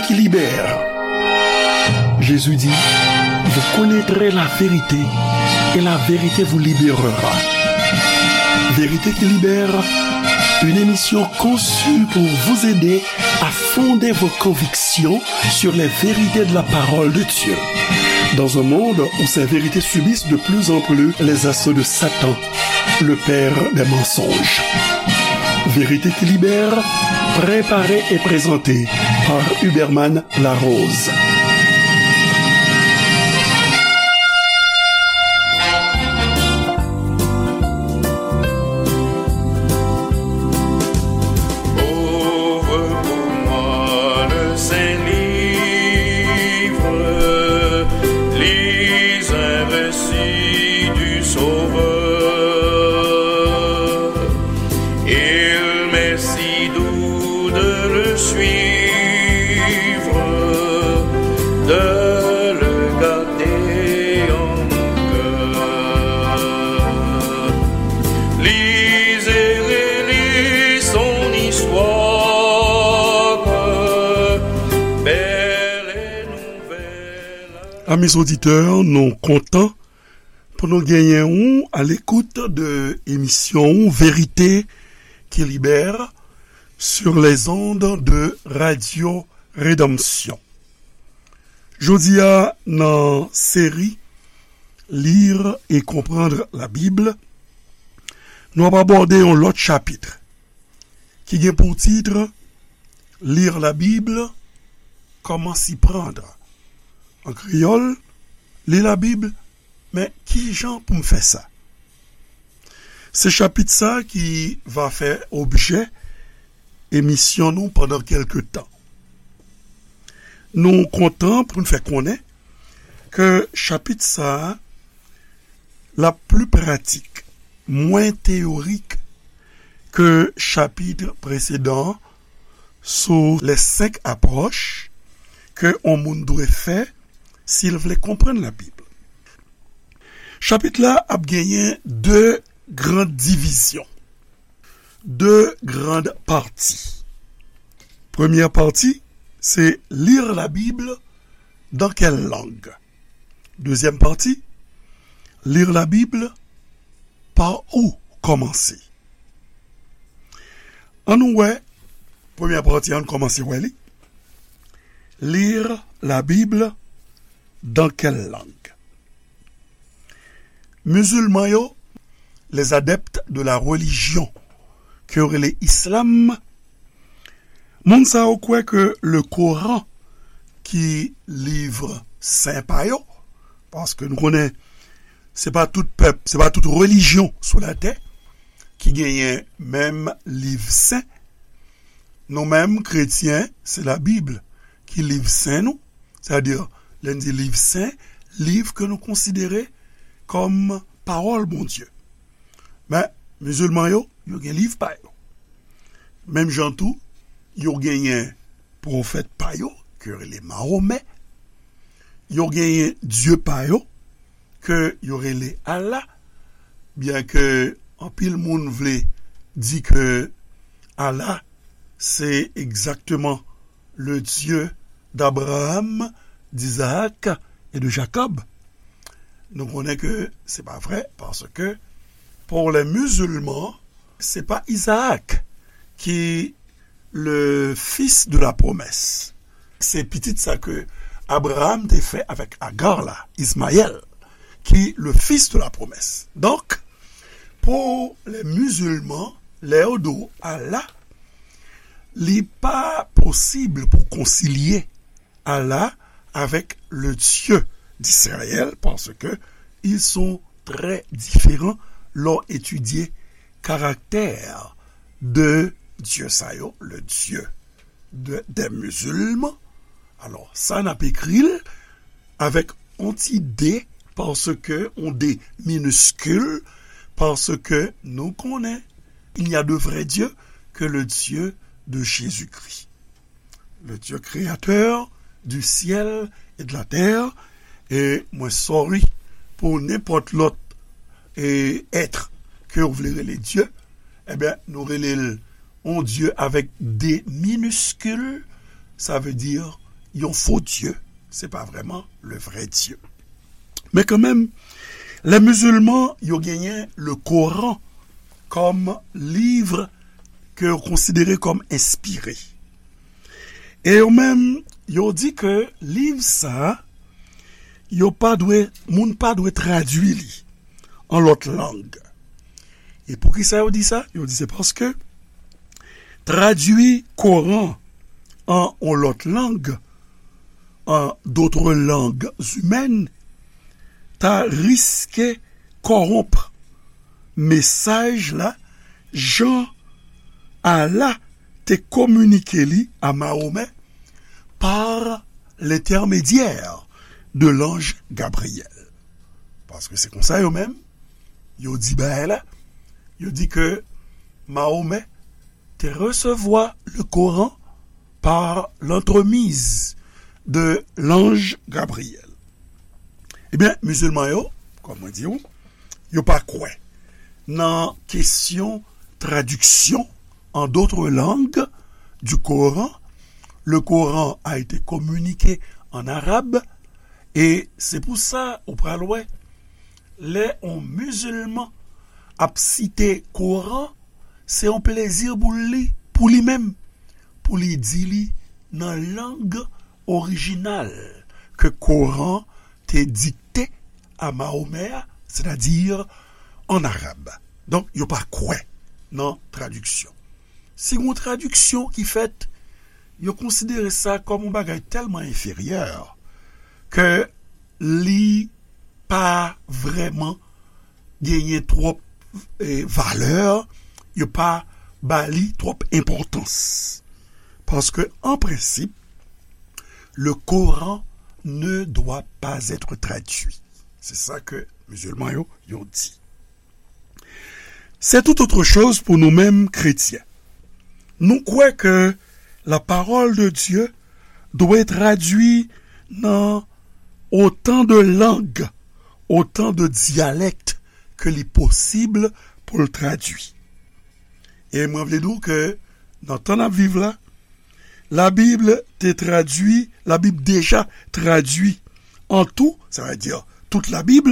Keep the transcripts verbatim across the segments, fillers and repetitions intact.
qui libère. Jésus dit, vous connaîtrez la vérité et la vérité vous libérera. Vérité qui libère, une émission conçue pour vous aider à fonder vos convictions sur les vérités de la parole de Dieu. Dans un monde où ces vérités subissent de plus en plus les assauts de Satan, le père des mensonges. Vérité qui libère, préparée et présentée par Huberman Larose. Ouvre pour moi le Saint-Livre, lis un récit du Sauveur. Il m'est si doux de le suivre, de le garder en mon cœur. Lis et relis son histoire, belle et nouvelle. Amis auditeurs, nou kontan pou nou genyen ou à l'écoute de émission Vérité qui libère sur les ondes de Radio Rédemption. Jodi a, nan seri Lire et comprendre la Bible, nou ap abòde yon lòt chapit ki gen pou tit Lire la Bible, comment s'y prendre. An kreyòl, li Labib, men ki jan pou m fè sa? Se chapit sa ki va fè objè emisyon nou pandan kèlke tan. Nou kontan pou n fè konnen ke chapit sa a l ap pli pratik, mwen teyorik ke chapit presedan an sou les cinq approches ke yon moun dwe fè si l vle konprann Labib. Chapit la ap genyen de gran divizyon, de gran pati. Premyè pati, se lire la Bible dans quelle langue? Dezyèm pati, lire la Bible, par où commencer? Ann nou wè, premyè pati, ann kòmanse wè li. Lire la Bible dans quelle langue? Mizilman yo, les adeptes de la religion ke yo rele islam, moun sa yo kwè ke le Koran ki liv sen pa yo, paske nou konnen se pa tout pèp, se pa tout relijyon sou latè ki genyen menm liv sen. Nou menm, kretyen, se Labib ki liv sen nou. Sètadi, lè n di liv sen, liv ke nou konsidere kòm pawòl Bondye. Men, mizilman yo, yo gen liv pa yo. Menm jan tou, yo genyen pwofèt pa yo, ke yo rele Mahomè. Yo genyen dye pa yo, ke yo rele Allah, byenke anpil moun vle di ke Allah se egzakteman le Dieu d'Abraham, d'Isaac et de Jacob. Nou konnen ke se pa vre, paske pour les musulmans, se pa Isaac ki le fils de la promesse. Se pitit sa ke Abraham te fè avèk Agar la, Ismaël, ki le fils de la promesse. Donk, pou les musulmans, lè yo di w Allah, li pa posib pou konsilye Allah avec le Dieu d'Israël, parce que ils sont très différents lè w etidye karaktè de Dye sa yo, le Dieu de, des musulmans. Alò, sa n ap ekri l avèk yon ti D, paske yon D miniskil, paske nou konnen, il n'y a de vrai Dieu que le Dieu de Jésus-Christ. Le Dieu créateur du ciel et de la terre. E mwen sorry pou nenpòt lòt e èt ke w vle rele Dye. Ebyen, nou rele l yon Dye avèk D miniskil, sa vle di yon fo Dye, se pa vrèman le vrai Dieu. Men kanmenm, lè mizilman yo genyen le Koran kòm liv ke yo konsidere kòm enspire. E yo menm, yo di ke liv sa a, yo pa dwe, moun pa dwe tradui li an lòt lang. E poukisa yo di sa? Yo di se paske tradui Koran an yon lòt lang, an d'autres langues humaines, ta riske kòwonp mesaj la jan Allah te kominike li a Mahomè par l'intermédiaire de l'ange Gabriel. Paske se konsa yo menm, yo di bagay la, yo di ke Mahomè te resevwa le Koran par l'entremise de l'ange Gabriel. Ebyen, mizilman yo, kòm mwen di w, yo pa kwè nan kesyon tradiksyon en d'autres langues du Coran. Le Coran a été communiqué en arabe, e se pou sa ou pral wè, lè yon mizilman ap site Koran, se yon plezi pou li, pou li menm, pou li di li nan lang orijinal ke Koran te dikte a Mahomè a, sètadi an arab. Donk, yo pa kwè nan tradiksyon. Si gon tradiksyon ki fèt, yo konsidere sa kòm yon bagay tèlman enferyè ke li pa vrèman genyen twòp, eh, valè, yo pa ba li twòp enpòtans. Paske, an prensip, le Coran ne doit pas être traduit. Se sa ke mizilman yo, yo di. C'est tout autre chose pour nou menm kretyen. Nou kwè ke la parole de Dieu dwe tradui nan otan de lang, otan de dyalèk ke li posib pou l tradui. E mwen vle di w ke nan tan n ap viv la, Labib te tradui, Labib deja tradui an tou, sa vle di tout Labib,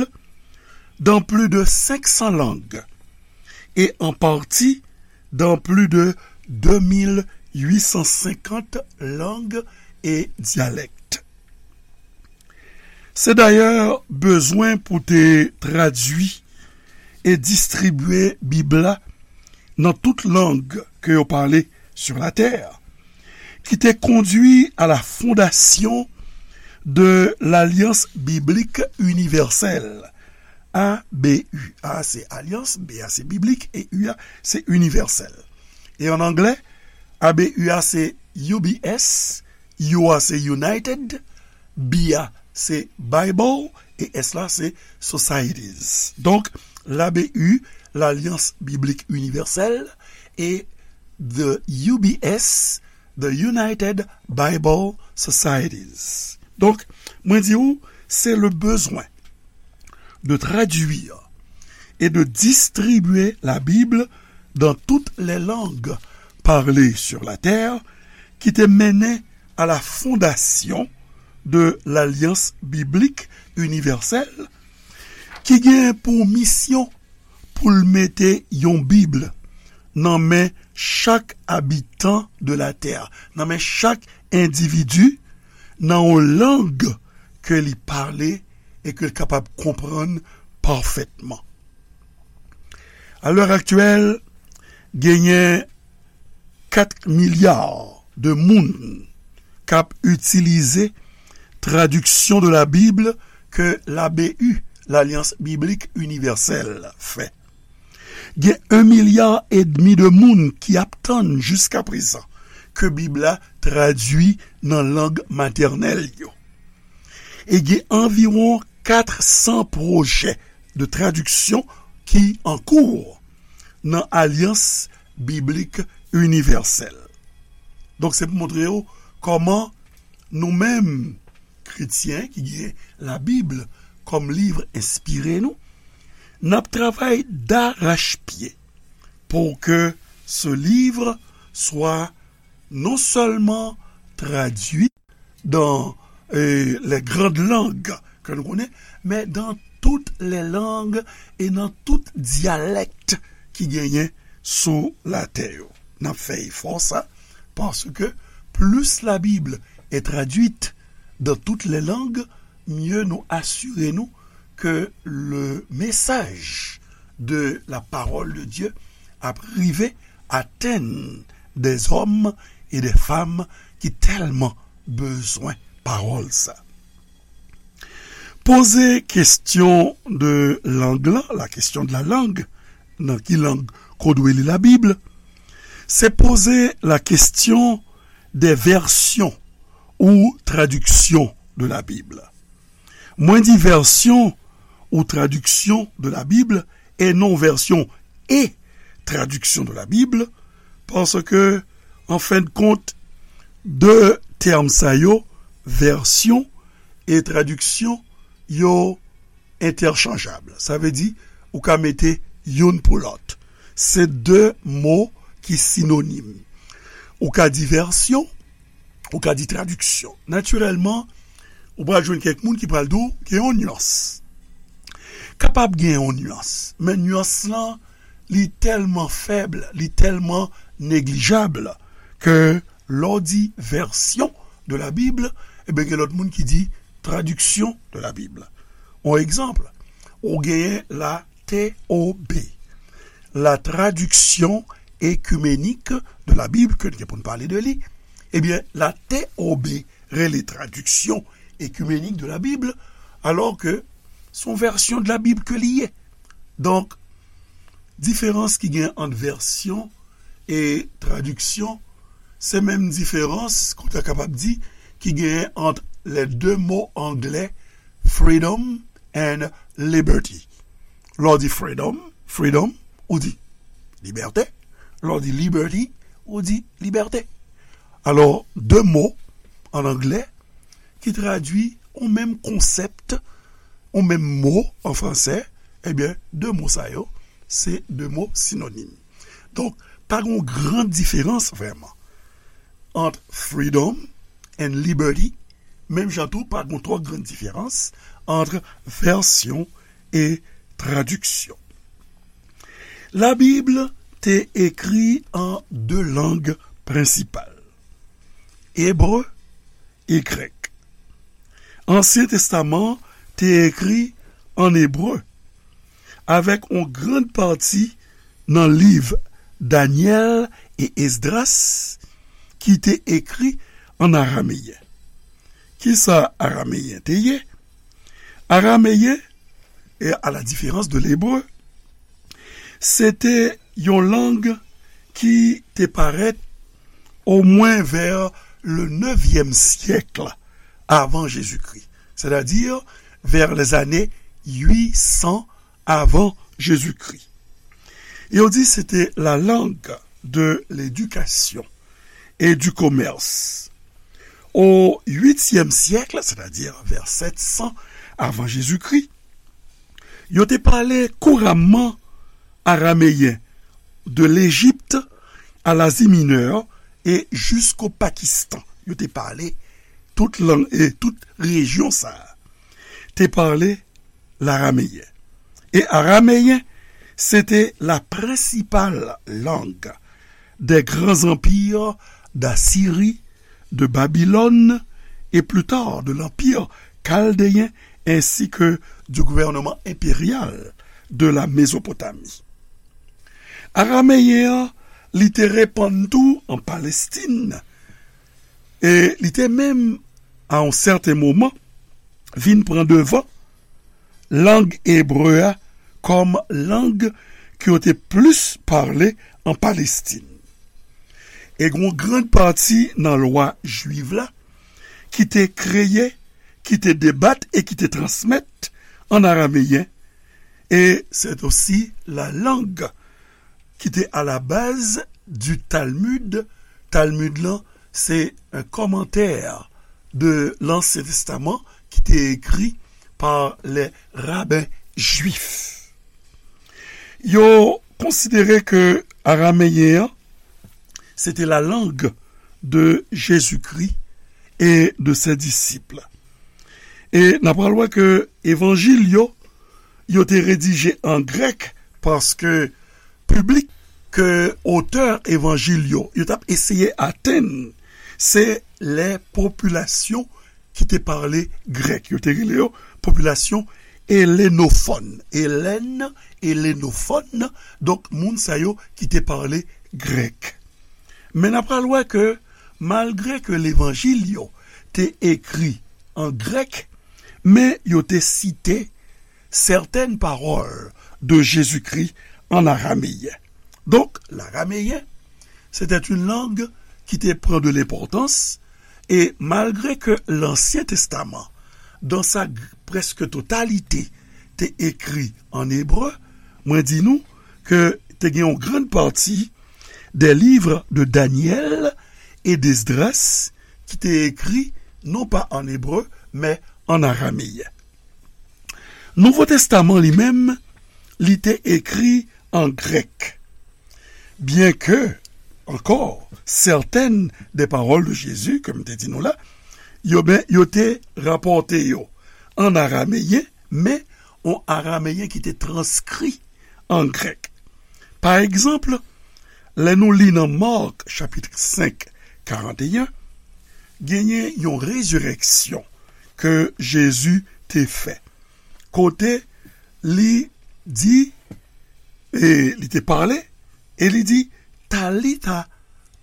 dans plus de cinq cents langues et en partie dans plus de deux mille huit cent cinquante langues et dialectes. Se dayè bezwen pou te tradui e distribye Bib la nan tout lang ke yo pale sur la terre, ki te kondui à la fondation de l'Alliance Biblique Universelle, A B U. A se Alyans, B a se Biblik, e U a se Inivèsèl. E an anglè, A B U a se U B S, U a se United, B a se Bible, e S la se Societies. Donk, l'A B U, l'Alliance Biblique Universelle, e the U B S, the United Bible Societies. Donk, mwen di w, se le besoin de traduire et de distribuer la Bible dans toutes les langues parlées sur la terre ki te mennen à la fondation de l'Alliance Biblique Universelle, ki gen pou misyon pou l mete yon Bib nan men chak abitan de la tè, nan men chak endividi, nan yon lang ke li pale e ke l kapab konprann pafètman. A lè aktyèl, genyen kat milya de moun k ap itilize tradiksyon de la Bible ke l'A B U, l'Alliance Biblique Universelle, fè. Gen yon milya edmi de moun ki ap tann jiskaprezan ke Bib la tradui nan lang matènèl yo. E gen anviwon kat san pwojè de tradiksyon ki an kou nan Alyans Biblik Inivèsèl. Donk, se pou montre w kòman nou menm, kretyen ki gen Labib kòm liv enspire nou, n ap travay darachpye pour que ce livre soit non seulement traduit, dans euh, les grandes langues ke nou konnen, men dans toutes les langues e nan tout dyalèk ki genyen sou latè yo. N ap fè efò sa, paske plus la Bible est traduite dans toutes les langues, mieux nou asire nou ke le message de la parole de Dieu ap rive atenn des hommes et des femmes ki tèlman bezwen pawòl sa. Poze kesyon de lang lan, la question de la langue, nan ki lang ke w dwe li Labib, se poze la question des versions ou traductions de la Bible. Mwen di version ou traduction de la Bible e non version et traduction de la Bible, paske, an fen de kont, de tèm sa yo, version e traduction, yo entèchanjab. Sa vle di, ou ka mete youn pou lòt. Se de mo ki sinonim. Ou ka di version, ou ka di tradiksyon. Natirèlman, ou pral jwenn kèk moun ki pral di w gen yon nyans. Kapab gen yon nyans, men nyans lan, li tèlman fèb, li tèlman neglijab ke lè w di version de la Bible, ebyen, gen lòt moun ki di tradiksyon de la Bible. Yon egzanp, ou genyen la T O B, la Traduction Écuménique de la Bible, ke n gen pou n pale de li. Ebyen, la T O B rele Traduction Écuménique de la Bible, alò ke se yon vèsyon de la Bib ke li ye. Donk, diferans ki gen ant vèsyon e tradiksyon, se menm diferans, ke w ta kapab di, ki genyen ant les deux mots anglais freedom and liberty. Lè w di freedom, freedom, ou di libète. Lè w di liberty, ou di libète. Alò, de mo an anglè ki tradui yon menm konsèp, yon menm mo an fransè, ebyen, de mo sa yo, se de mo sinonim. Donk, pa gen yon gran diferans vrèman ant freedom and liberty, menm jan tou, pa gen twò gran diferans ant vèsyon e tradiksyon. Labib te ekri an de lang prensipal, ebre e grèk. Ansyen Testaman te ekri an ebre, avèk yon grann pati nan liv Danyèl e Esdras ki te ekri an arameyen. Kisa arameyen te ye? Arameyen, e à la différence de l'hébreu, se te yon lang ki te parèt omwen vè le nevyèm syèk avan Jezikri, sètadi vè lèzane uit san avan Jezikri. Yo di se te la langue de l'éducation et du commerce. O uityèm syèk, sètadi vè sèt san avan Jezikri, yo te pale kouramman arameyen de Lejip a Lazi Minè e jisko Pakistan. Yo te pale tout lang e tout rejyon sa a te pale larameyen. E arameyen, se te la prensipal lang des grands empires d'Assyrie, de Babylone et plus tard de l'Empire chaldéen ainsi que du gouvernement impérial de la Mésopotamie. Arameyen an, li te repann tou an Palestin, e li te menm, a yon sèten moman, vin pran devan lang ebre a kòm lang ke yo te plis pale an Palestin. E gen yon grann pati nan lwa jwiv la ki te kreye, ki te debat e ki te transmèt an arameyen, e c'est aussi la langue qui était à la base du Talmud. Talmud lan, se un commentaire de l'Ancien Testament ki te ekri pa les rabbins juifs. Yo konsidere ke arameyen an, se te la langue de Jezikri, et de ses disciples. E n ap pral wè ke evanjil yo, yo te redije an grèk paske piblik ke otè evanjil yo, yo t ap eseye atenn, se lè popilasyon ki te pale grèk. Yo te rele yo popilasyon elenofòn. Elèn, elenofòn, donk moun sa yo ki te pale grèk. Men n ap pral wè ke malgre ke levanjil yo te ekri an grèk, men yo te site sètèn pawòl de Jezikri an arameyen. Donk, larameyen, c'était une langue qui te pran de l'importance, e malgre ke Lansyen Testaman, dans sa g- presque totalité, te ekri an ebre, mwen di nou ke te gen yon grann pati des livres de Daniel et d'Esdras ki te ekri non pa an ebre, men an arameyen. Nouvo Testaman li menm, li te ekri an grèk. Byen ke, ankò, sètèn de pawòl de Jezi, ke m te di nou la, yo, ben, yo te rapòte yo an arameyen, men yon arameyen ki te transkri an grèk. Pa egzanp, lè nou li nan Mak, chapit senk, karanteyen, genyen yon rezirèksyon ke Jezi te fè. Kote li di, e li te pale, e li di, Talita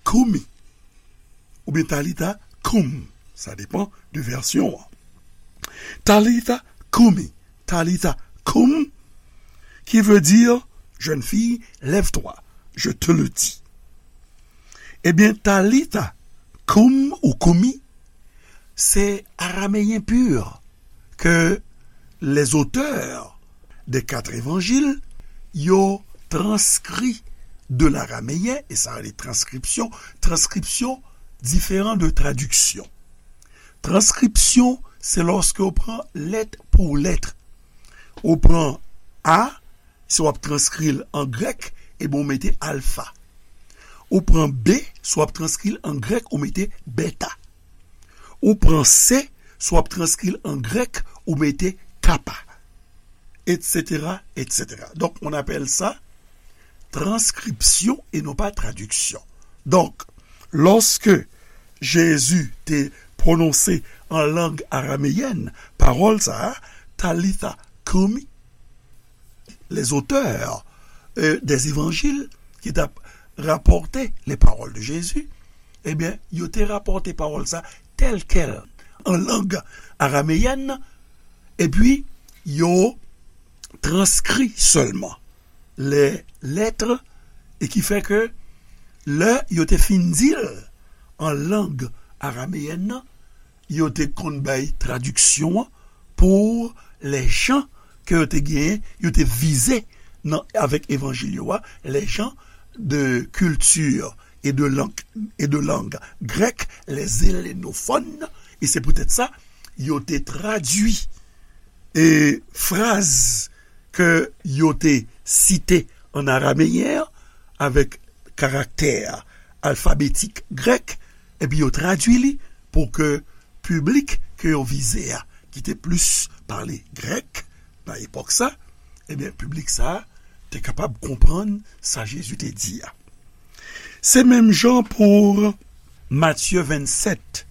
koumi, oubyen Talita koum, sa depan de vèsyon an. Talita koumi, Talita koum, qui veut dire, jeune fille, lève-toi, je te le dis. Ebyen, Talita koum ou koumi, se arameyen pur ke les auteurs des quatre évangiles yo transkri de l'araméen, e sa rele transkripsyon. Transkripsyon diferan de tradiksyon. Transkripsyon, se lòske ou pran lèt pou lèt. Ou pran A, si w ap transkri l an grèk, ebyen ou mete alfa. Ou pran B, si w ap transkri l an grèk, ou mete beta. Ou pran C, si w ap transkri l an grèk, ou mete kappa, et cetera, et cetera. Donc, on appelle ça transcription et non pas traduction. Donk, lòske Jezi te pwononse an lang arameyèn pawòl sa a, Talitha koumi, les auteurs, euh, des évangiles ki t ap rapòte les paroles de Jésus, ebyen, yo te rapòte pawòl sa tèl kèl an lang arameyèn, epi yo transkri sèlman les lettres, e ki fè ke lè yo te fin di l an lang arameyèn nan, yo te konn bay tradiksyon an pou lèjan ke yo te genyen, yo te vize nan, avèk evanjil yo a, lèjan de culture et de langue, et de langue grecque, les hellenophones, e se poutèt sa, yo te tradui e fraz ke yo te site an arameyen an avèk karaktè alfabetik grèk, epi yo tradui li pou ke piblik ke yo vize a, ki te plis pale grèk nan epòk sa, ebyen, piblik sa a te kapab konprann sa Jezi te di a. Se menm jan pou Matye vennsèt,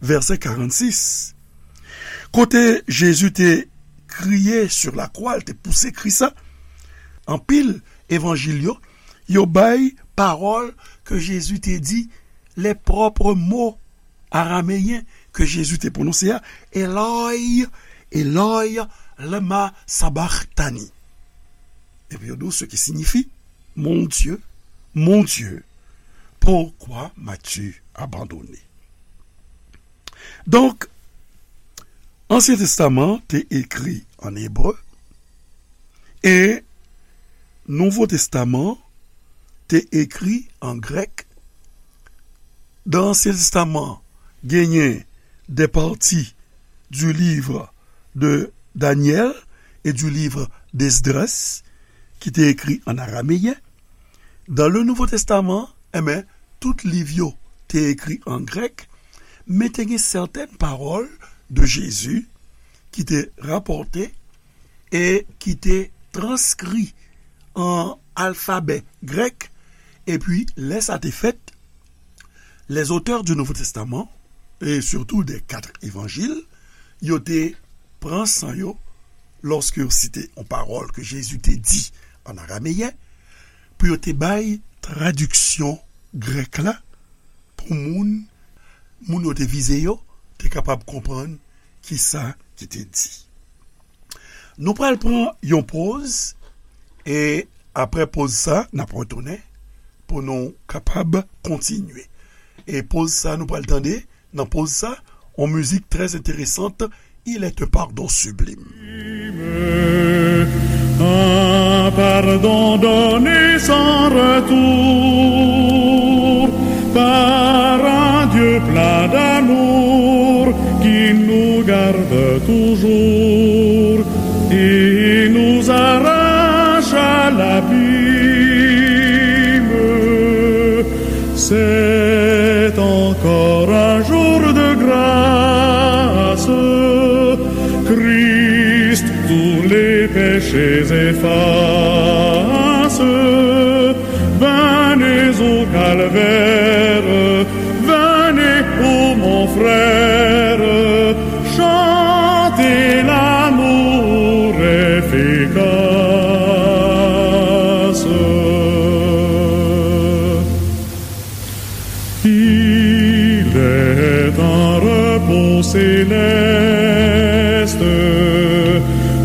vèsè karannsis, kote Jezi te kriye sur la croix, l te pouse kri sa, anpil evanjil yo, yo bay pawòl ke Jezi te di, les propres mots arameyen ke Jezi te pwononse a, Eloi, Eloi, lema sabachthani. Epi yo di w, ce qui signifie, Mon Dieu, mon Dieu, pourquoi m'as-tu abandonné? Donk, Ansyen Testaman te ekri an ebre e Nouvo Testaman te ekri an grèk. Dan Ansyen Testaman, genyen des parties du livre de Daniel et du livre d'Esdras ki te ekri an arameyen. Dan le Nouveau Testament, enben, tout liv yo te ekri an grèk, Men te gen sètèn pawòl de Jezi ki te rapòte e ki te transkri an alfabè grèk, epi lè sa te fèt, les auteurs du Nouveau Testament, e sitou des quatre évangiles, yo te pran san yo lòske yo site yon pawòl ke Jezi te di an arameyen, pou yo te bay tradiksyon grèk la pou moun, moun yo te vize yo, te kapab konprann kisa ki te di. Nou pral pran yon poz, e apre poz sa, n ap retounen pou nou kapab kontinye. E poz sa, nou pral tande, nan poz sa, yon mizik trè enteresan, Il est un pardon sublime. Un pardon donné sans retour par un Dieu plein d'amour qui nous garde toujours et nous arrache à l'abîme. C'est encore un jour de grâce. Christ tous les péchés efface. Venez au calvaire, venez, ô mon frère, chantez l'amour efficace. Il est un repos céleste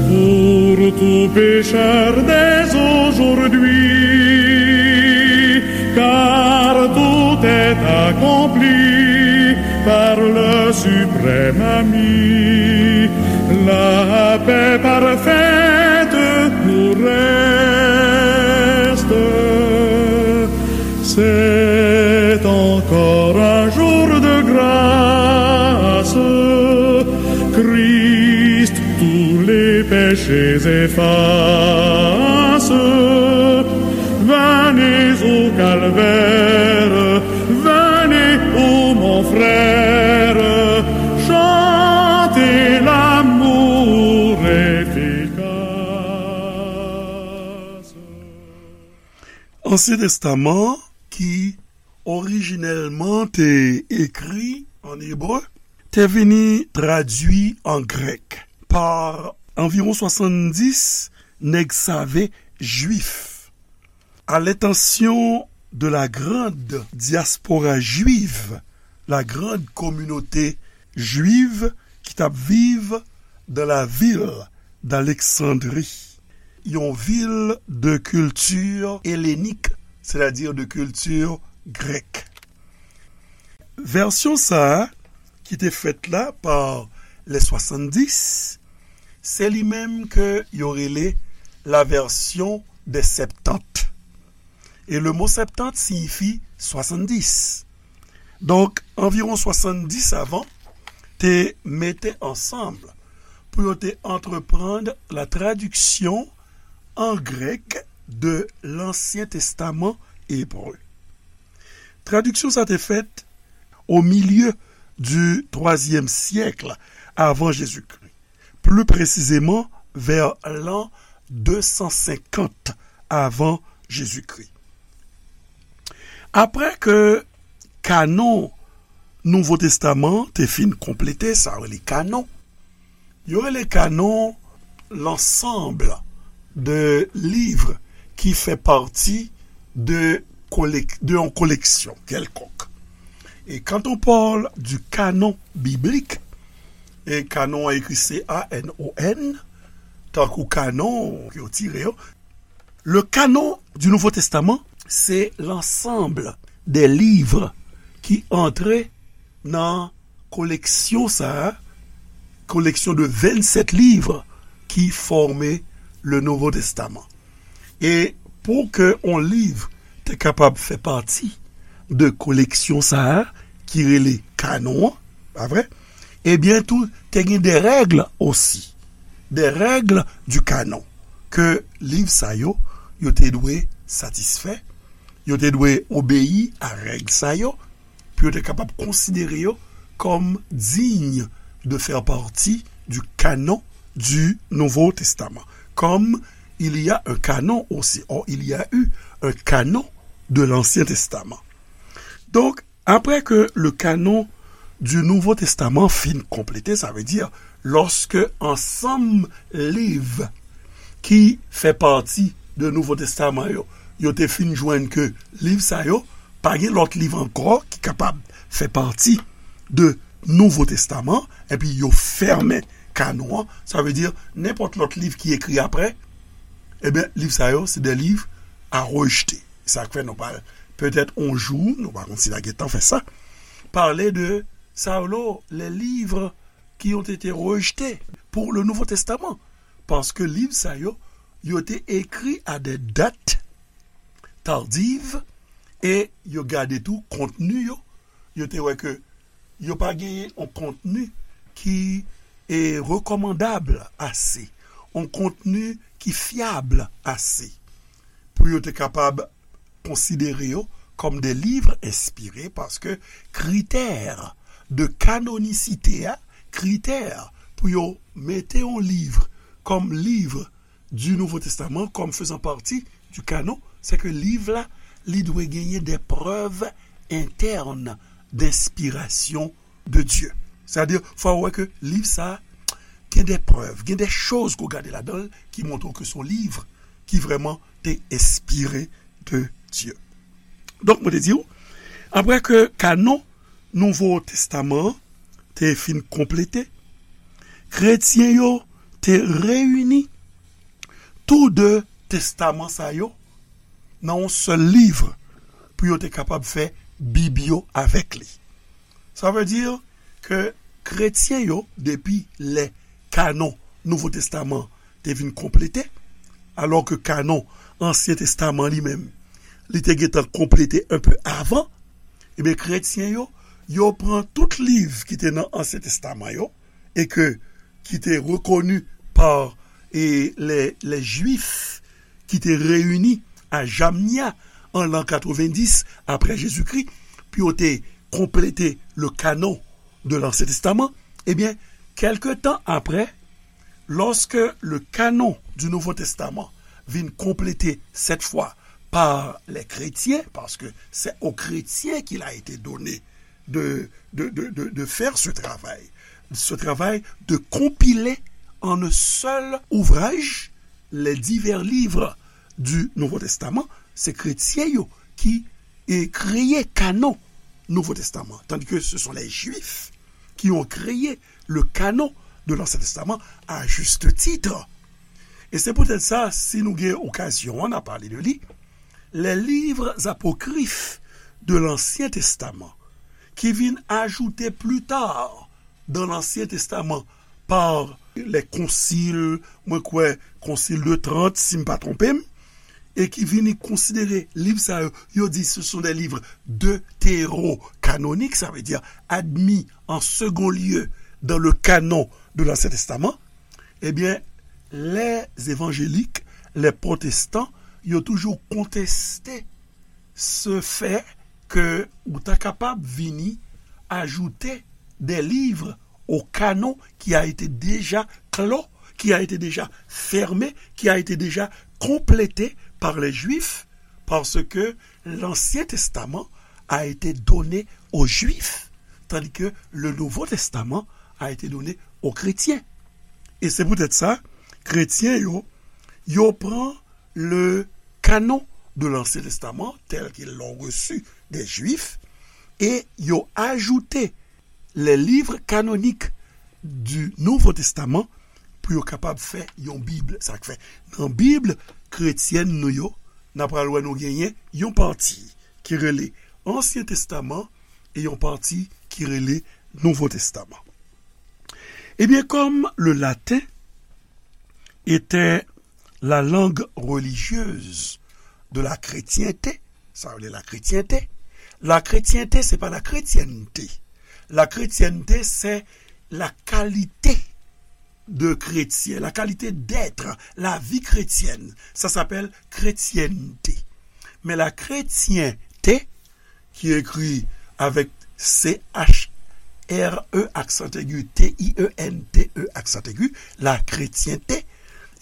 pour tout pécheur dès aujourd'hui, car tout est accompli par le suprême ami. La paix parfaite nous reste. C'est encore un jour de grâce. Christ tous les péchés efface. Venez au calvaire, venez, ô mon frère, chantez l'amour efficace. Ansyen Testaman, ki orijinèlman te ekri an ebre, te vini tradui an grèk pa anviwon swasanndis nèg save jwif. À l'intention de la grande diaspora juive, la grande communauté juive ki t ap viv dans la ville d'Alexandrie, yon vil de kilti elenik, sètadi de kilti grèk. Vèsyon sa a, ki te fèt la pa les swasanndis, se li menm ke yo rele la version des Septante. E le mo Septante siyifi swasanndis. Donk, anviwon swasanndis savan te mete ansanm pou yo te antreprann la tradiksyon an grèk de Lansyen Testaman ebre. Tradiksyon sa te fèt au milieu du troisième siècle avant Jésus-Christ, plus précisément vers l'an deux cent cinquante avant Jésus-Christ. Apre ke kanon Nouvo Testaman te fin konplete, sa yo rele kanon, yo rele kanon lansanb de liv ki fè pati de, kolek, de yon koleksyon kèlkonk. Et quand on parle du canon biblique, e kanon an ekri C A N O N, tankou kanon yo tire yo, le canon du Nouveau Testament, se lansanb de liv ki antre nan koleksyon sa a, koleksyon de vennsèt liv ki fòme le Nouveau Testament. E pou ke yon liv te kapab fè pati de koleksyon sa a ki rele kanon an, pa vre? Ebyen tou, te gen de règ osi, de règ du canon, ke liv sa yo, yo te dwe satisfè, yo te dwe obeyi a règ sa yo, pou yo te kapab konsidere yo comme digne de faire partie du canon du Nouveau Testament, comme il y a un canon aussi. Or, il y a eu un canon de l'Ancien Testament. Donk, apre ke le canon du Nouveau Testament fin konplete, sa vle di, lòske ansanm liv ki fè pati de Nouvo Testaman yo, yo te fin jwenn ke liv sa yo, pa gen lòt liv ankò ki kapab fè pati de Nouvo Testaman, epi yo fèmen kanon an, sa vle di, nenpòt lòt liv ki ekri apre, ebyen, liv sa yo, se de liv a rejte. Sa k fè nou pral, petèt on jou, nou pa konn si n a gentan fè sa, pale de sa yo, les livres qui ont été rejetés pour le Nouveau Testament. Paske liv sa yo, yo te ekri a de dat tardiv, e yo gade tou kontni yo, yo te wè ke yo pa genyen yon kontni ki e rekòmandab ase, yon kontni ki fyab ase pou yo te kapab konsidere yo kòm de liv enspire, paske kritè de kanonisite a, kritè pou yo mete yon liv kòm liv du Nouveau Testament comme faisant partie du canon, c'est que liv la, li dwe genyen des preuves internes d'inspiration de Dieu. Sètadi, fò w wè ke liv sa gen de prèv, gen de choz ke w gade ladan l ki montre ke se yon liv ki vrèman te enspire de Dye. Donk, mwen te di w, apre ke kanon Nouvo Testaman an te fin konplete, kretyen yo te reyini tou de testaman sa yo nan yon sèl liv pou yo te kapab fè Bib yo avèk li. Sa vle di ke kretyen yo, depi lè kanon Nouvo Testaman te vin konplete, alò ke kanon Ansyen Testaman li menm, li te gentan konplete enpe avan, ebyen, kretyen yo, yo pran tout liv ki te nan Ansyen Testaman yo, e ke, ki te rekoni pa, e, lè, lè Jwif ki te reyini a Jamnia an lan katrevenndis apre Jezikri, pou yo te konplete le canon de l'Ancien Testament, ebyen, kèlke tan apre, lorsque le canon du Nouveau Testament vin konplete cette fois par les chrétiens, parce que c'est aux chrétiens qu'il a été donné de, de, de, de, de faire ce travail, ce travail de compiler en un seul ouvrage les divers livres du Nouveau Testament, se kretyen yo ki e, kreye kanon Nouvo Testaman, tandis que ce sont les Juifs qui ont créé le canon de l'Ancien Testament à juste titre. Et c'est peut-être ça, si nou gen okazyon, on a parlé de li, les livres apocryphes de l'Ancien Testament, qui viennent ajouter plus tard dans l'Ancien Testament par les conciles, mwen kwè Concile de Trente, si m pa twonpe m, e ki vini konsidere liv sa yo, yo di ce sont des livres deutérocanoniques, sa vle di admis en second lieu dans le canon de l'Ancien Testament, ebyen, les évangéliques, les protestants, yo toujou konteste se fè ke ou ta kapab vini ajoute des livres au canon qui a été déjà clos, qui a été déjà fermé, qui a été déjà complété par les Juifs, parce que l'Ancien Testament a été donné aux Juifs, tandis que le Nouveau Testament a été donné aux chrétiens. E se poutèt sa, kretyen yo, yo pran le canon de l'Ancien Testament tel qu'ils l'ont reçu des Juifs, e yo ajoute les livres canoniques du Nouveau Testament pou yo kapab fè yon Bib. Sa k fè, nan Bib kretyèn nou yo, n a pral wè nou genyen yon pati ki rele Ansyen Testaman e yon pati ki rele Nouvo Testaman. Ebyen, comme le latin était la langue religieuse de la chrétienté, sa vle la kretyente, la kretyente, se pa la kretyènte. La kretyènte, c'est la qualité de chrétien, la qualité d'être, la vie chrétienne. Ça s'appelle kretyènte. Men la kretyente, ki ekri avèk C H R E aksan egi, T I E N T E aksan egi, la kretyente,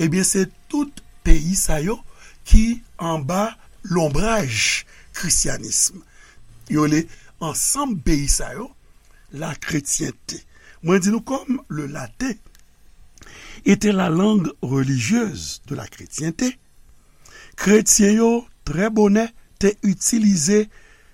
ebyen, se tout peyi sa yo ki anba lonbraj krisyanism. Yo rele ansanm peyi sa yo la kretyente. Mwen di nou, comme le latin était la langue religieuse de la chrétienté, kretyen yo trè bonè te itilize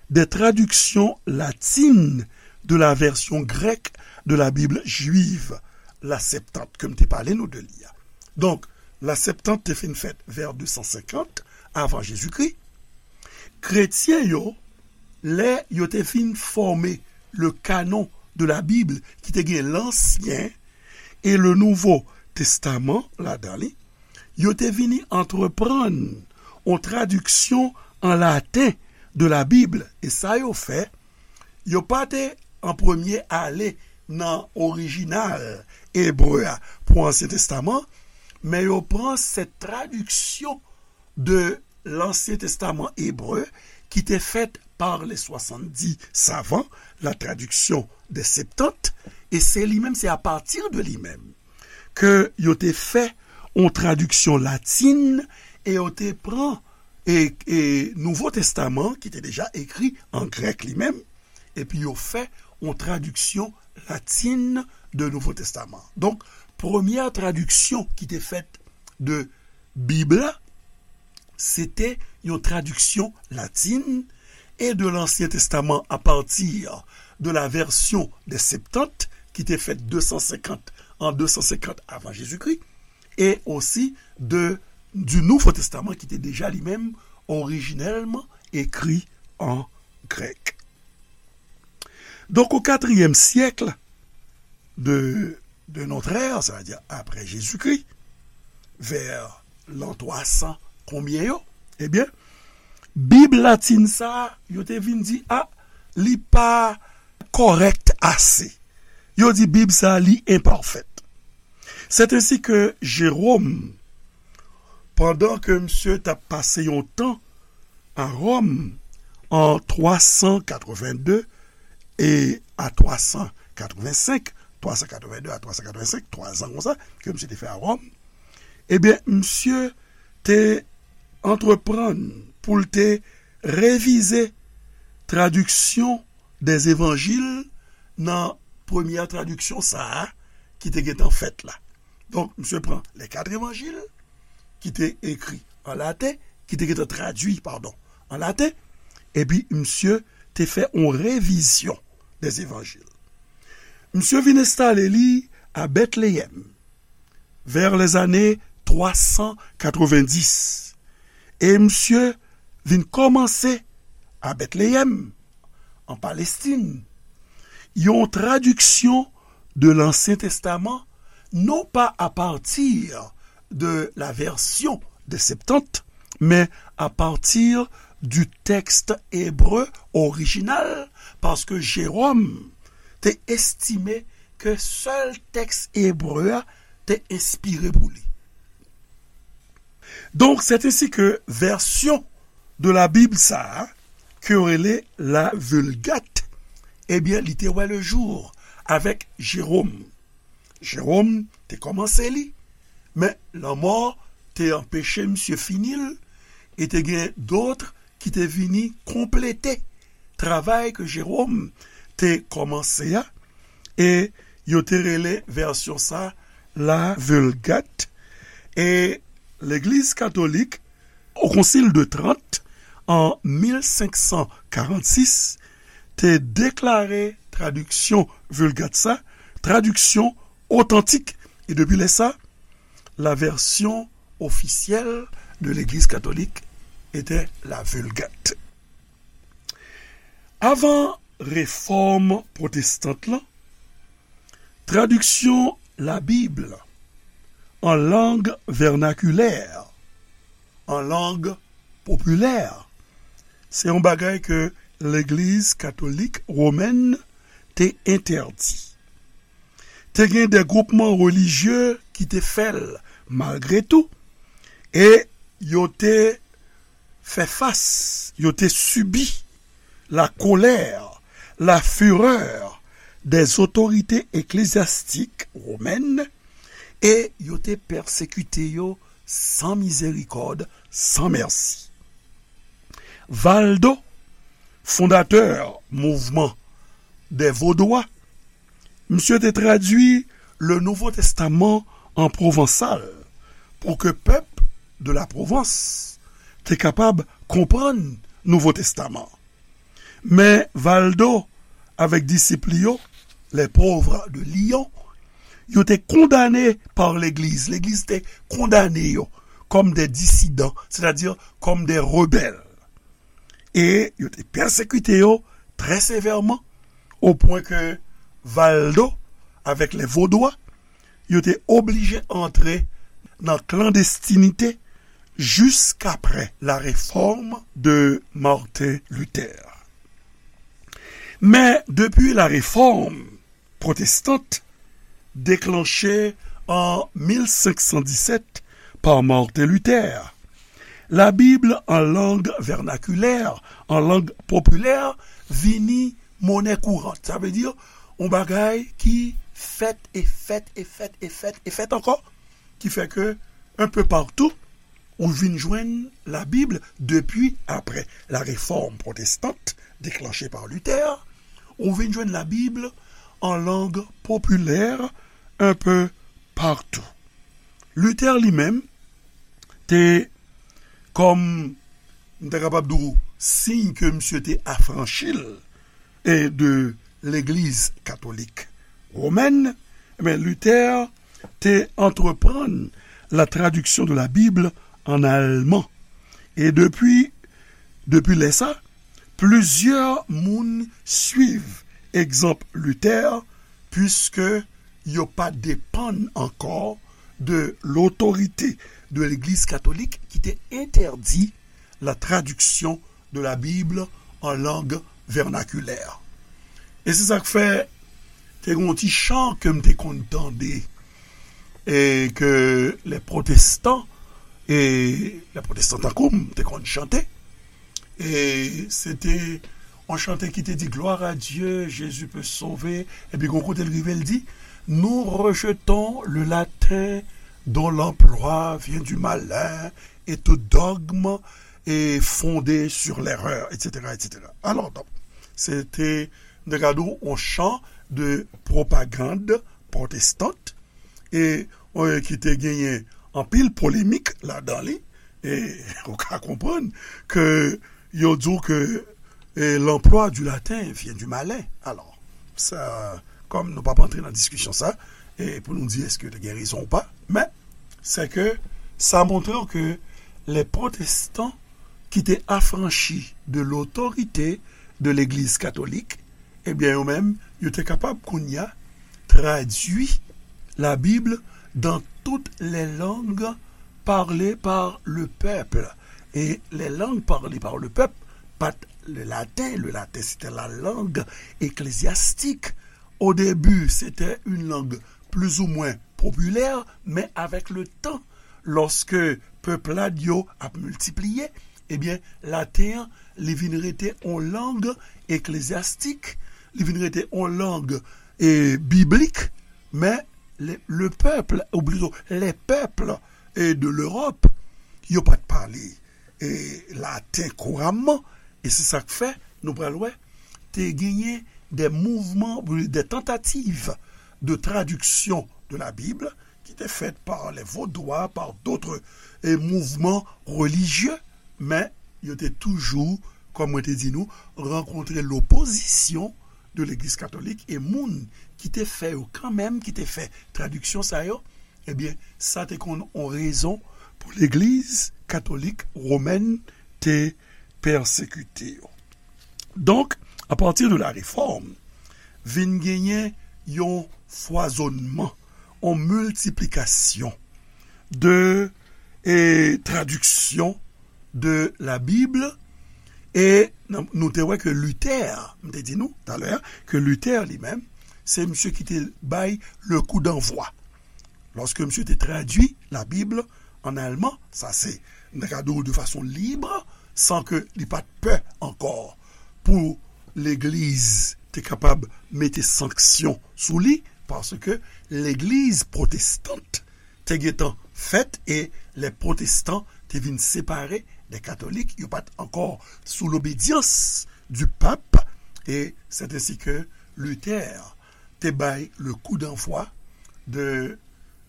de tradiksyon latin de la version grecque de la Bible juive, la Septante, ke m te pale nou de li a. Donk, la Septante te fin fèt vè de san senkant avan Jezikri. Kretyen yo, lè yo te fin fòme le canon de la Bible, ki te gen Lansyen e le Nouvo Testaman ladan li, yo te vini antreprann yon tradiksyon an laten de la Bib. E sa yo fè, yo pa te an premye ale nan orijinal ebre a pou Ansyen Testaman, men yo pran cette traduction de l'Ancien Testament hébreu qui était faite par les soixante-dix savants, la traduction des Septante, e se li menm, se apati de li menm ke yo te fè yon tradiksyon latin e yo te pran e, e Nouvo Testaman ki te deja ekri an grèk li menm, epi yo fè yon tradiksyon latin de Nouvo Testaman. Donk, premyè tradiksyon ki te fèt de Bib la, se te yon tradiksyon latin e de Lansyen Testaman apati de la version des Septante ki te fèt de san senkant, an de san senkant avan Jezikri, e osi de, du Nouveau Testament ki te deja li menm orijinèlman ekri an grèk. Donk, au quatrième siècle de, de notre ère, sa vle di apre Jezikri, vè lan twa san konbyen yo, ebyen, Bib latin sa a, yo te vin di, a, li pa kòrèk ase. Yo di Bib sa a, li enpafèt. C'est ainsi que Jérôme, pandan ke misye t ap pase yon tan a Ròm an twa san katrevenn de e a twa san katrevenn senk, twa san katrevenn de a twa san katrevenn senk, twa zan konsa, ke misye te fè a Ròm, ebyen, misye te antreprann pou l te revize tradiksyon dè evanjil nan premyè tradiksyon sa a ki te gentan fèt la. Donk, misye pran les quatre évangiles, ki te ekri an laten, ki te gentan tradui, padon, an laten, epi misye te fè yon revizyon dè evanjil. Misye vin enstale li a Bètleyèm, vè lèzane twa san katrevenndis. E misye vin kòmanse a Bètleyèm, an Palestin, yon tradiksyon de Lansyen Testaman, non pa apati de la version de Septante, men apati du texte hébreu original, paske Jérôme te estime ke sèl tèks ebre a te enspire pou li. Donk, c'est ainsi que version de la Bible sa a, ke yo rele la Vulgate, ebyen, li te wè le jour avèk Jérôme. Jérôme te kòmanse li, men lanmò te anpeche misye fini l, e te gen dòt ki te vini konplete travay ke Jérôme te kòmanse a, e yo te rele vèsyon sa la Vulgate. E Legliz Katolik, o Konsil de Trant, an mil senk san karannsis, te deklare tradiksyon Vulgate sa, tradiksyon otantik. E depi lè sa, la version officielle de l'Église catholique était la Vulgate. Avan refòm pwotestant lan, tradiksyon Labib an lang vènakilè, an lang popilè, se yon bagay ke Legliz Katolik Womèn te entèdi. Te gen de gwoupman relijye ki te fè l malgre tou, e yo te fè fas, yo te sibi la colère, la fureur des autorités ecclésiastiques romaines, e yo te pèsekite yo san mizerikòd, san mèsi. Valdo, fondatè mouvman dè Vodwa, misye te tradui le Nouveau Testament an pwovansal pou ke pèp de la Provence te kapab konprann Nouvo Testaman. Men Valdo avèk disip li yo, les pauvres de Lyon, yo te kondane pa legliz. Legliz te kondane yo kòm de disidan, sètadi kòm de rebèl. E yo te pèsekite yo trè sevèman, o pwen ke Valdo avèk les Vodwa, yo te oblije antre nan klandestinite jiskaprè la réforme de Martin Luther. Men depi la réforme protestante déclenchée en mil senk san disèt pa Martin Luther, la Bible en langue vernaculaire, en langue populaire, vini monnaie courante. Sa vle di yon bagay ki fèt e fèt e fèt e fèt e fèt ankò, ki fè ke un peu partout, ou vin jwenn la Bible depi aprè la réforme protestante déclenchée par Luther, ou vin jwenn la Bible en langue populaire un peu partout. Luther li menm te, kòm m ta kapab di w, siy ke misye te afranchi l e de legliz katolik womèn, men Luther te antreprann la traduction de la Bible en allemand. E depi, depi lè sa, plizyè moun swiv egzanp Luther, puiske yo pa depann ankò de l'autorité de legliz katolik ki te entèdi la traduction de la Bible en langue vernaculaire. E se sa k fè te gen yon ti chan ke m te konn tande, e ke les protestants, e les protestants tankou m te konn chante, e se te yon chante ki te di, Gloire à Dieu, Jésus peut sauver. Epi gon kote l rive, l di, Nous rejetons le latin dont l'emploi vient du malin et tout dogme est fondé sur l'erreur, et cetera, et cetera. Alò, donk, se te, m te ka di w, yon chan de pwopagand pwotestant, e, e ki te genyen anpil polemik ladan li, e ou ka konprann ke yo di w ke, e, l'emploi du latin vient du malin. Alò, sa, kòm nou p ap antre nan diskisyon sa, e pou nou di èske yo te gen rezon ou pa, men se ke sa montre w ke les protestants ki te afranchi de l'autorité de legliz katolik, ebyen, yo menm, yo te kapab kounye a tradui la Bible dans toutes les langues parlées par le peuple. Et les langues parlées par le peuple, pa t le latin. Le latin, c'était la langue ecclésiastique. Au début, c'était une langue plus ou moins populaire, mais avec le temps, lòske pèp la yo ap miltipliye, ebyen, laten an, li vin rete yon lang eklezyastik, li vin rete yon lang, e, biblik, men le, le peuple, ou plito, les peuples, e, de l'Europe, yo pa t pale, e, laten kouramman, e se sa k fè, nou pral wè, te genyen des mouvements, des tentatives de traduction de la Bible, ki te fèt pa les Vaudois, pa d'autres, e, mouvements religieux, men yo te toujou, kòm mwen te di nou, rankontre lopozisyon de legliz katolik, e moun ki te fè yo kanmenm, ki te fè tradiksyon sa yo, ebyen, sa te konn yon rezon pou legliz katolik womèn te pèsekite yo. Donk, apati de la Réforme, vin genyen yon fwazonnman, yon miltiplikasyon de, e, tradiksyon de la Bible, e nan, nou te wè ke Luther, m te di nou talè, ke Luther li menm, se misye ki te bay le coup d'envoi. Lòske misye te tradui la Bible an alman, sa se, m ta ka di w de fason lib, san ke li pa t pè ankò pou legliz te kapab mete sanksyon sou li, paske legliz pwotestant te gentan fèt e lè pwotestan te vin separe de katolik, yo pa t ankò sou lobedyans du pap, e c'est ainsi que Luther te bay le coup d'envoi de,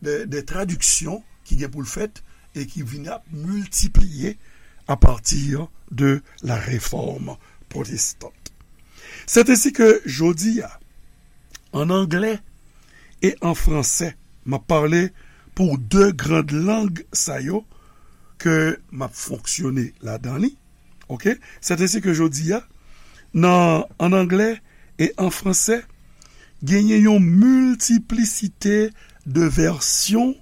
de, de tradiksyon ki gen pou l fèt e ki vin ap miltipliye à partir de la réforme protestante. C'est ainsi que jodi a, an anglè e an fransè, m ap pale pou de grand lang sa yo ke m ap fonksyone ladan li. Ok? C'est ainsi que jodi a, nan, an anglè e an fransè, genyen yon miltiplisite de vèsyon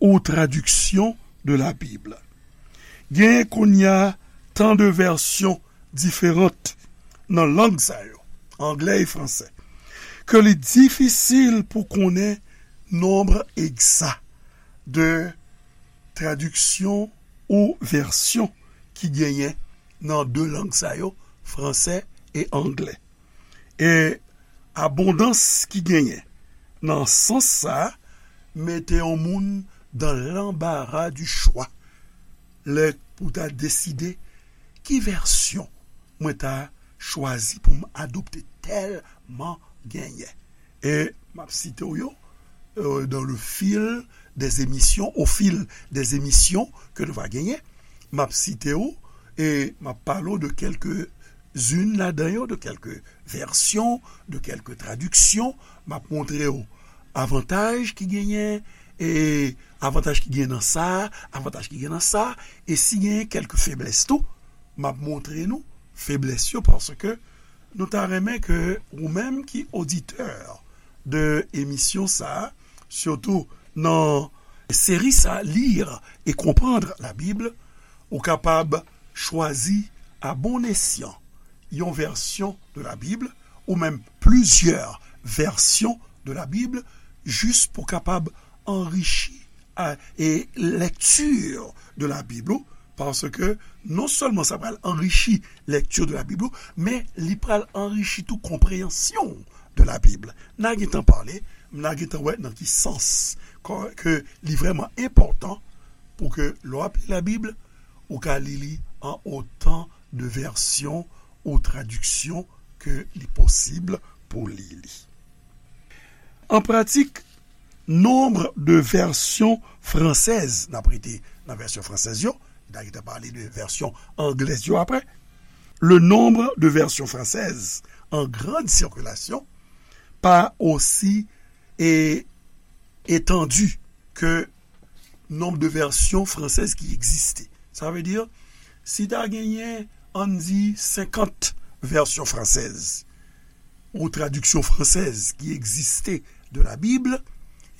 ou tradiksyon de la Bib. Genyen kounye a tan de vèsyon diferan nan lang sa yo, anglè e fransè, ke li difisil pou konnen nonb egza de tradiksyon ou vèsyon ki genyen nan de lang sa yo, fransè e anglè. E abondans ki genyen nan sans sa a mete yon moun dans l'embarras du choix lè pou ta deside ki vèsyon mwen ta chwazi pou m adopte tèlman genyen. E m ap site w yo euh, dans le fil des émissions, au fil des émissions ke nou va genyen. M ap site w e m ap pale w de kèlke zin ladan yo, de kèlke vèsyon, de kèlke tradiksyon. M ap montre w avantaj ki genyen, e avantaj ki genyen nan sa, avantaj ki genyen nan sa, e si genyen kèlke feblès tou, m ap montre nou feblès yo, paske nou ta renmen ke ou menm ki oditè de emisyon sa, sitou nan seri sa, Lire et comprendre la Bible, ou kapab chwazi à bon escient yon vèsyon de la Bible ou menm plizyè vèsyon de la Bible, jis pou kapab anrichi a, e lèkti de la Bib ou, paske non sèlman sa pral anrichi lèkti de la Bib ou, men li pral anrichi tou konpreyansyon de la Bib. N a gentan pale, n a gentan wè nan ki sans ke, ke li vrèman enpòtan pou ke lè w ap li la Bib, ou ka li li an otan de vèsyon ou tradiksyon ke li posib pou li li. An pratik, nonb de vèsyon fransèz, n ap rete nan vèsyon fransèz yo, n a gentan pale de vèsyon anglèz yo apre, le nombre de versions françaises en grande circulation pa osi e, etandi ke nonb de vèsyon fransèz ki egziste. Sa vle di, si ta genyen, ann di, senkant vèsyon fransèz ou tradiksyon fransèz ki egziste de la Bib,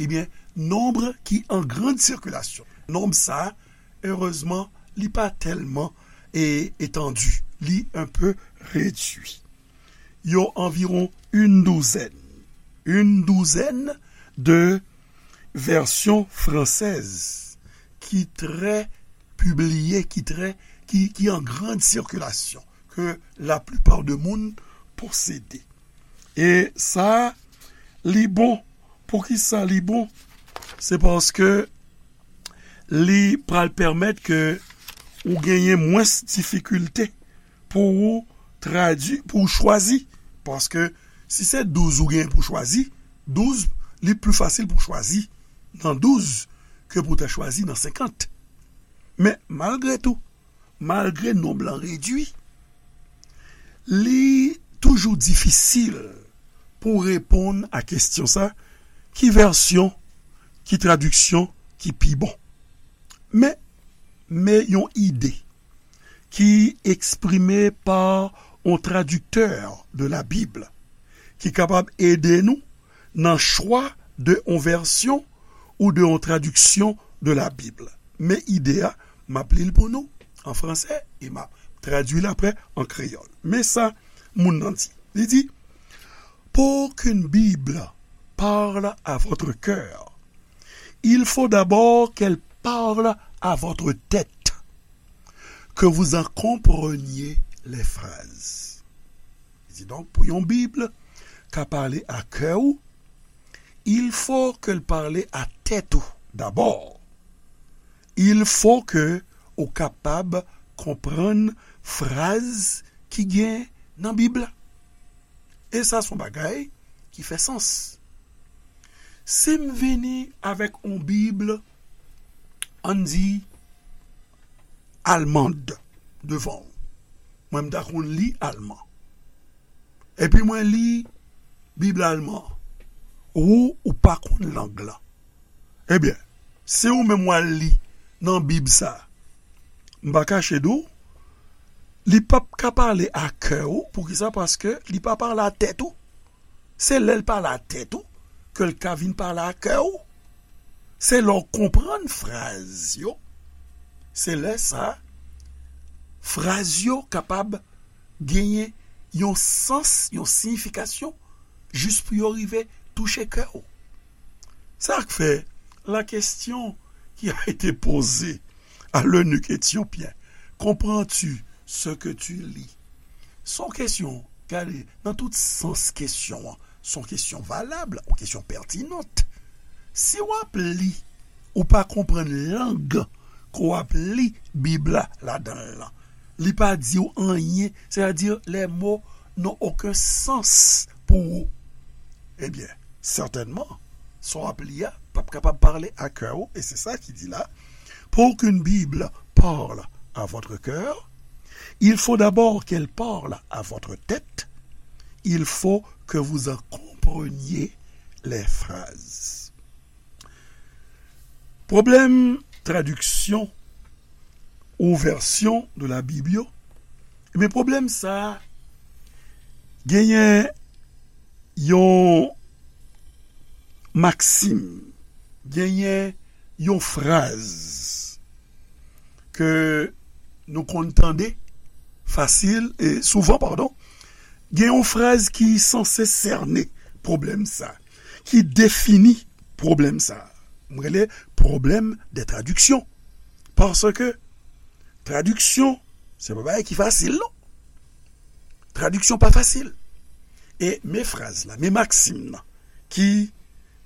ebyen, nonb ki an grande circulation. Nonb sa, erezman, li pa tèlman e, etandi, li un peu réduit. Yo anviwon une douzaine, une douzaine de versions françaises ki trè pibliye, ki trè, ki, ki an grande circulation, ke la plupart de moun posede. E sa, li bon. Poukisa li bon? Se paske li pral pèmèt ke ou genyen mwens difikilte pou ou tradui, pou ou chwazi. Paske si se douz ou genyen pou chwazi, douz, li pli fasil pou chwazi nan douz ke pou ta chwazi nan senkant. Men malgre tou, malgre nonb lan redui, li toujou difisil pou reponn a kesyon sa, ki vèsyon, ki tradiksyon ki pi bon? Men, men yon ide ki eksprime pa yon tradiktè de la Bib ki kapab ede nou nan chwa de yon vèsyon ou de yon tradiksyon de la Bib. Men ide a, m ap li l pou nou an fransè e m ap tradui l apre an kreyòl. Men sa moun nan di. Li di, pour qu'une Bible parle à votre cœur, il faut d'abord qu'elle parle à votre tête, que vous en compreniez les phrases. Di donk, pou yon Bib ka pale a kè ou, il faut que l pale a tèt ou dabò. Il faut que ou kapab konprann fraz ki gen nan Bib la. E sa se yon bagay ki fè sans. Si m vini avèk yon Bib, ann di, almand devan w, mwen m ta konn li alman. Epi mwen li Bib alman. Ou, ou pa konn lang lan. Ebyen, si ou menm w al li nan Bib sa, m pa kache di w, li p ap ka pale a kè ou. Poukisa? Paske li pa pale a tèt ou. Se lè l pale a tèt ou ke l ka vin pale a kè ou. Se lè w konprann fraz yo, se lè sa, fraz yo kapab genyen yon sans, yon siyifikasyon, jis pou yo rive touche kè w. Sa k fè, la question qui a été posée à l'eunuque éthiopien, comprends-tu ce que tu lis? Se yon kesyon, gade, nan tout sans kesyon an, se yon kesyon valab, yon kesyon pètinant. Si w ap li, ou pa konprann lang ke w ap li Bib la ladan l lan, li pa di w anyen, c'est-à-dire les mots n'ont aucun sens pour ou. Ebyen, sètènman, sa w ap li a p ap kapab pale a kè ou, e se sa ki di la, pour qu'une Bible parle à votre cœur, il faut d'abord qu'elle parle à votre tête, il faut que vous en compreniez les phrases. Pwoblèm tradiksyon ou vèsyon de la Bib yo, ebyen, pwoblèm sa a genyen yon maksim, genyen yon fraz ke nou konn tande fasil, e souvan, padon, gen yon fraz ki sanse sène pwoblèm sa, ki defini pwoblèm sa. M rele pwoblèm de tradiksyon. Paske tradiksyon, se pa bagay ki fasil, non. Tradiksyon pa fasil. E men fraz la, men maksim nan, ki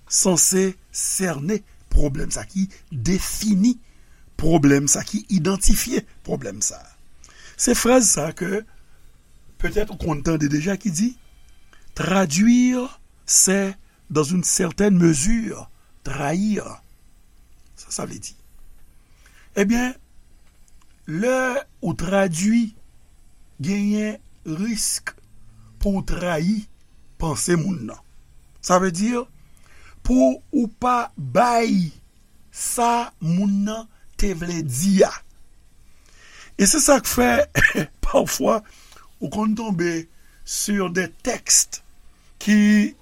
sanse sène pwoblèm sa, ki defini pwoblèm sa, ki idantifye pwoblèm sa. Se fraz sa ke petèt ou konn tande deja ki di, traduire, c'est, dans une certaine mesure, trahir. Sa sa vle di? Ebyen, lè ou tradui, genyen risk pou w trayi panse moun nan. Sa vle di, pou ou pa bay sa moun nan te vle di a. E se sa k fè, pafwa, ou konn tonbe sur des textes ki,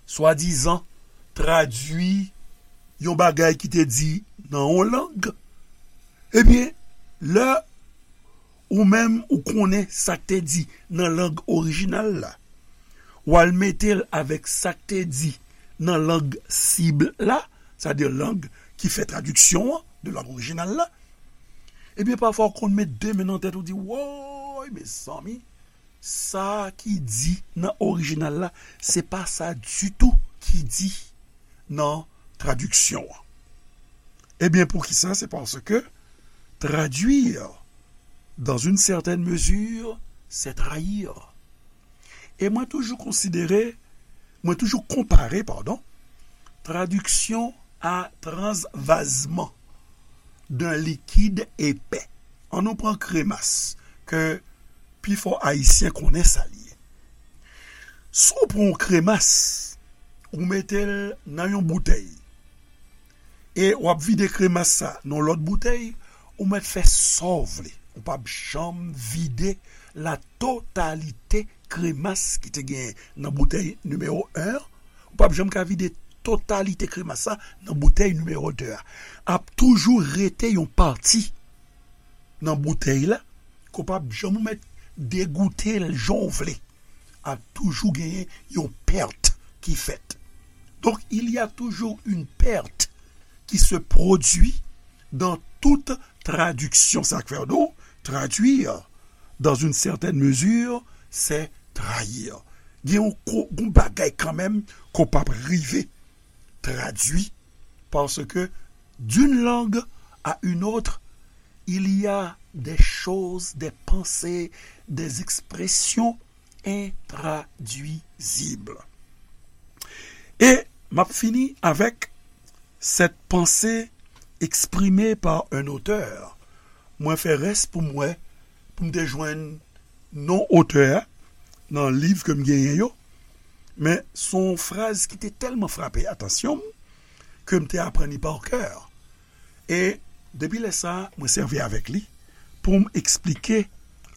swadizan, tradui yon bagay ki te di nan yon lang. Ebyen, lè ou menm ou konnen sa k te di nan lang orijinal la, w al mete l avèk sa k te di nan lang sib la, sètadi lang ki fè tradiksyon an de lang orijinal la, ebyen, pafwa w konn met de men nan tèt ou di, woy, mezanmi, sa ki di nan orijinal la, se pa sa ditou ki di nan tradiksyon an. Ebyen, poukisa? Se paske traduire, dans une certaine mesure, c'est trahir. E mwen toujou konsidere, mwen toujou konpare, padon, tradiksyon a transvazman d'un liquide épais. Ann nou pran kremas, ke pifò Ayisyen konnen sa l ye. Si w pran yon kremas, ou mete l nan yon boutèy, e w ap vide kremas sa nan lòt boutèy, ou mèt fè sa w vle. Ou p ap janm vide la totalité kremas ki te gen nan boutèy nimewo en an. Ou p ap janm ka vide totalité kremas sa nan boutèy nimewo de a. Ap toujou rete yon pati nan boutèy la, ke w p ap janm ou mèt degoute l jan w vle. Ap toujou genyen yon pèt ki fèt. Donc, il y a toujours une perte qui se produit dans toute traduction. Sa k fè nou, traduire, dans une certaine mesure, c'est trayi. Gen yon ko-, yon bagay kanmenm ke w p ap rive tradui, parce que d'une langue à une autre, il y a des choses, des pensées, des expressions intraduisibles. E m ap fini avec cette pensée exprimée par un auteur. Mwen fè rès pou m wè, pou m te jwenn non otè a nan liv ke m genyen yo, men se yon fraz ki te tèlman frape atansyon m ke m te aprann li pa kè. E depi lè sa a, mwen sèvi avèk li pou m eksplike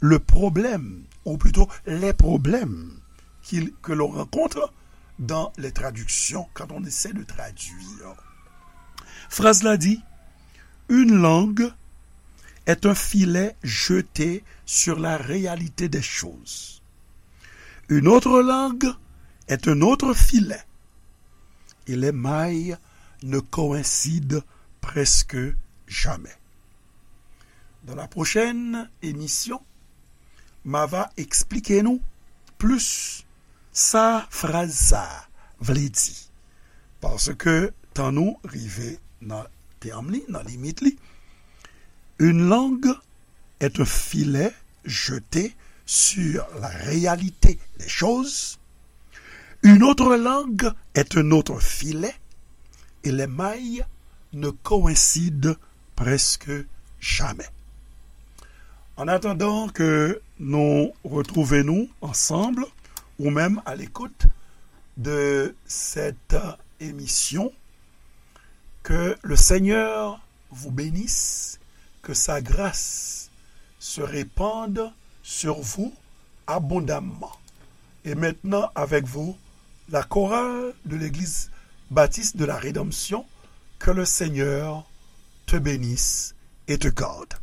le problème, ou plutôt les problèmes qu'il, que l'on rencontre dans les traductions quand on essaie de traduire. Fraz la di, une langue est un filet jeté sur la réalité des choses. Une autre langue est un autre filet. Et les mailles ne coïncident presque jamais. Dans la prochaine émission, m a va eksplike nou plis sa fraz sa a vle di. Paske tan nou rive nan tèm li, nan limit li, une langue est un filet jeté sur la réalité des choses. Une autre langue est un autre filet et les mailles ne coïncident presque jamais. En attendant que nous retrouvions nous ensemble, ou même à l'écoute de cette émission, que le Seigneur vous bénisse, que sa grâce se répande sur vous abondamment. Et maintenant, avec vous, la chorale de l'Église baptiste de la Rédemption, que le Seigneur te bénisse et te garde.